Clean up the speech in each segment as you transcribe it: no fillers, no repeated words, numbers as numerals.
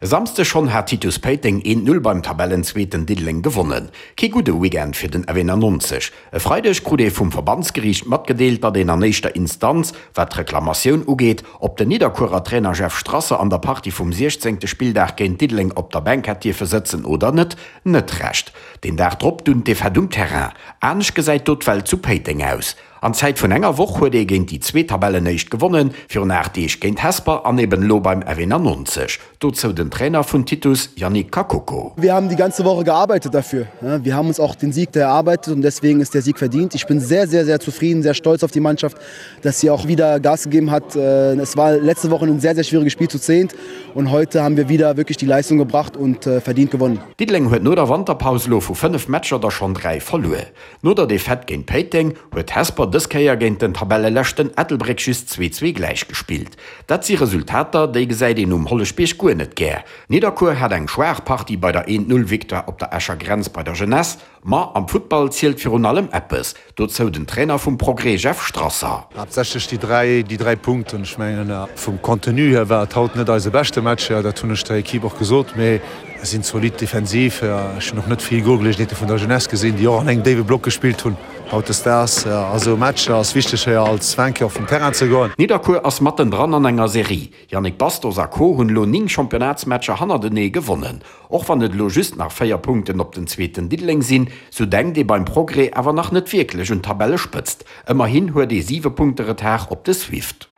E Samsdeg schonn hat Titus Péiteng 1, 0 beim Tabellenzweeten Diddeleng gewonnen. Kee gudde Weekend fir den F91. E Freideg krut ee vum Verbandsgeriicht matgedeelt, datt een an éischter Instanz, wat d'Reklamatioun ugeet, ob den Nidderkuerer Trainer Jeff Strasser an der Partie vum 16. Spilldag géint Diddeleng op der Bänk hätt dierfe sëtzen oder net, net Recht. Den Dag drop dunn d'Defaite um Terrain. Anescht gesäit do d'Welt zu Péiteng aus. An Zäit vun enger Woch huet ee géint déi zwee Tabellenéischt gewonnen, virun 8 Deeg géint Hesper an eben elo beim F91. Dozou den Trainer vun Titus, Yannick Kakoko. Wir haben die ganze Woche gearbeitet dafür. Wir haben uns auch den Sieg erarbeitet und deswegen ist der Sieg verdient. Ich bin sehr, sehr, sehr zufrieden, sehr stolz auf die Mannschaft, dass sie auch wieder Gas gegeben hat. Es war letzte Woche ein sehr, sehr schwieriges Spiel zu zehnt und heute haben wir wieder wirklich die Leistung gebracht und verdient gewonnen. Diddeleng huet no der Wanterpaus elo vu 5 Matcher der schonn 3 verluer. No der Defaite géint Péiteng huet Hesper dës Kéier géint den Tabelleleschten Ettelbréck just 2, 2 gläich gespillt. Dat si Resultater, déi gesäit een um Holleschbierg guer net gär. Nidderkuer hat eng schwaach Partie bei der 1, 0 Victoire op der Escher Grenz bei der Jeunesse. Ma am Futtball zielt virun allem eppes, dozou den Trainer vum Progrès Jeff Strasser. Haaptsächlech déi dräi, déi dräi Punkten. Ech mengen, vum Contenu hier war et haut net eise beschte Match, dat hunn ech der Equipe och gesot, mee Mir sinn zolidd defensiv. Ech hunn och net vill Golgeleegenheete vun der Jeunesse gesinn, déi och an engem déiwe Block gespillt hunn. Hautdesdaags a sou Matcher ass wichteg héier als Vainqueur vum Terrain ze goen. Nidderkuer ass matten dran an enger Serie. Yannick Bastos a Co hunn elo 9 Championnatsmatcher hannertenee gewonnen. Och wann et elo just nach 4 Punkten op den zweeten Diddeleng sinn, sou denkt ee beim Progrès awer nach net wierklech un d'Tabellespëtzt. Ëmmerhin huet ee 7 Punkte Retard op de Swift.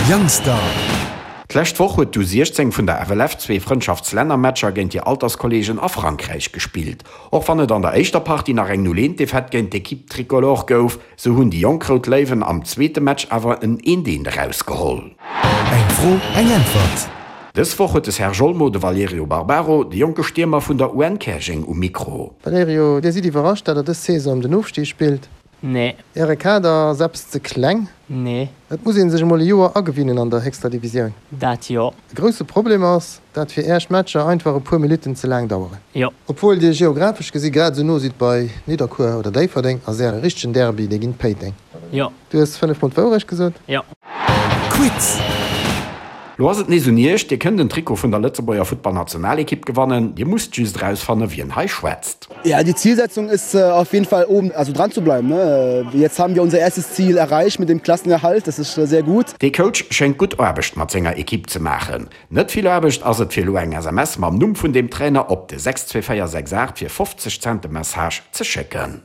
Youngstar. D'lescht Woch huet d'U16 vun der FLF zwee Frëndschaftslännermatcher géint hir Alterskolleegen a Frankräich gespillt. Och wann et an der éischter Partie nach eng 0 1 Defaite géint d'Equipe Tricolore gouf, sou hunn déi jonk Rout Léiwen am zweete Match awer en 1 1 erausgeholl. Eng Fro, eng Äntwert. Dës Woch huet de Serge Olmo de Valerio Barbaro, de jonke Stiermer vun der UN Käerjeng um Mikro. Valerio, Dir sidd iwwerrascht, dat der dës Saison ëm den Ofstig spillt? Nee. Äre Kader ass eppes ze kleng? Nee. Et muss een sech emol e Joer agewinnen an der héchster Divisioun. Dat jo. E grousse Problem ass, dat fir Äech Matcher einfach e puer Minutten ze laang daueren. Jo. Obwuel Dir geographesch gesi grad esou no sidd bei Nidderkuer oder Déifferdeng, ass Äre richtegen Derby dee géint Péiteng. Jo. Du hues 5 mol d'Wourecht gesot? Jo. Quiz! Lo ass et nees un Iech, Dir kënnt en Trikot vun der Lëtzebuerger Futtballnationalekipp gewannen. Dir musst just erausfanne wien hei schwätzt. Ja, die Zielsetzung ist auf jeden Fall oben also dran zu bleiben ne. Jetzt haben wir unser erstes Ziel erreicht mit dem Klassenerhalt, das ist sehr gut. Dee Coach schéngt gutt Aarbecht mat senger Ekipp ze maachen. Net vill Aarbecht ass et fir elo eng SMS mam Numm vun deem Trainer op de 62468 fir 50 Cent de Message ze schécken.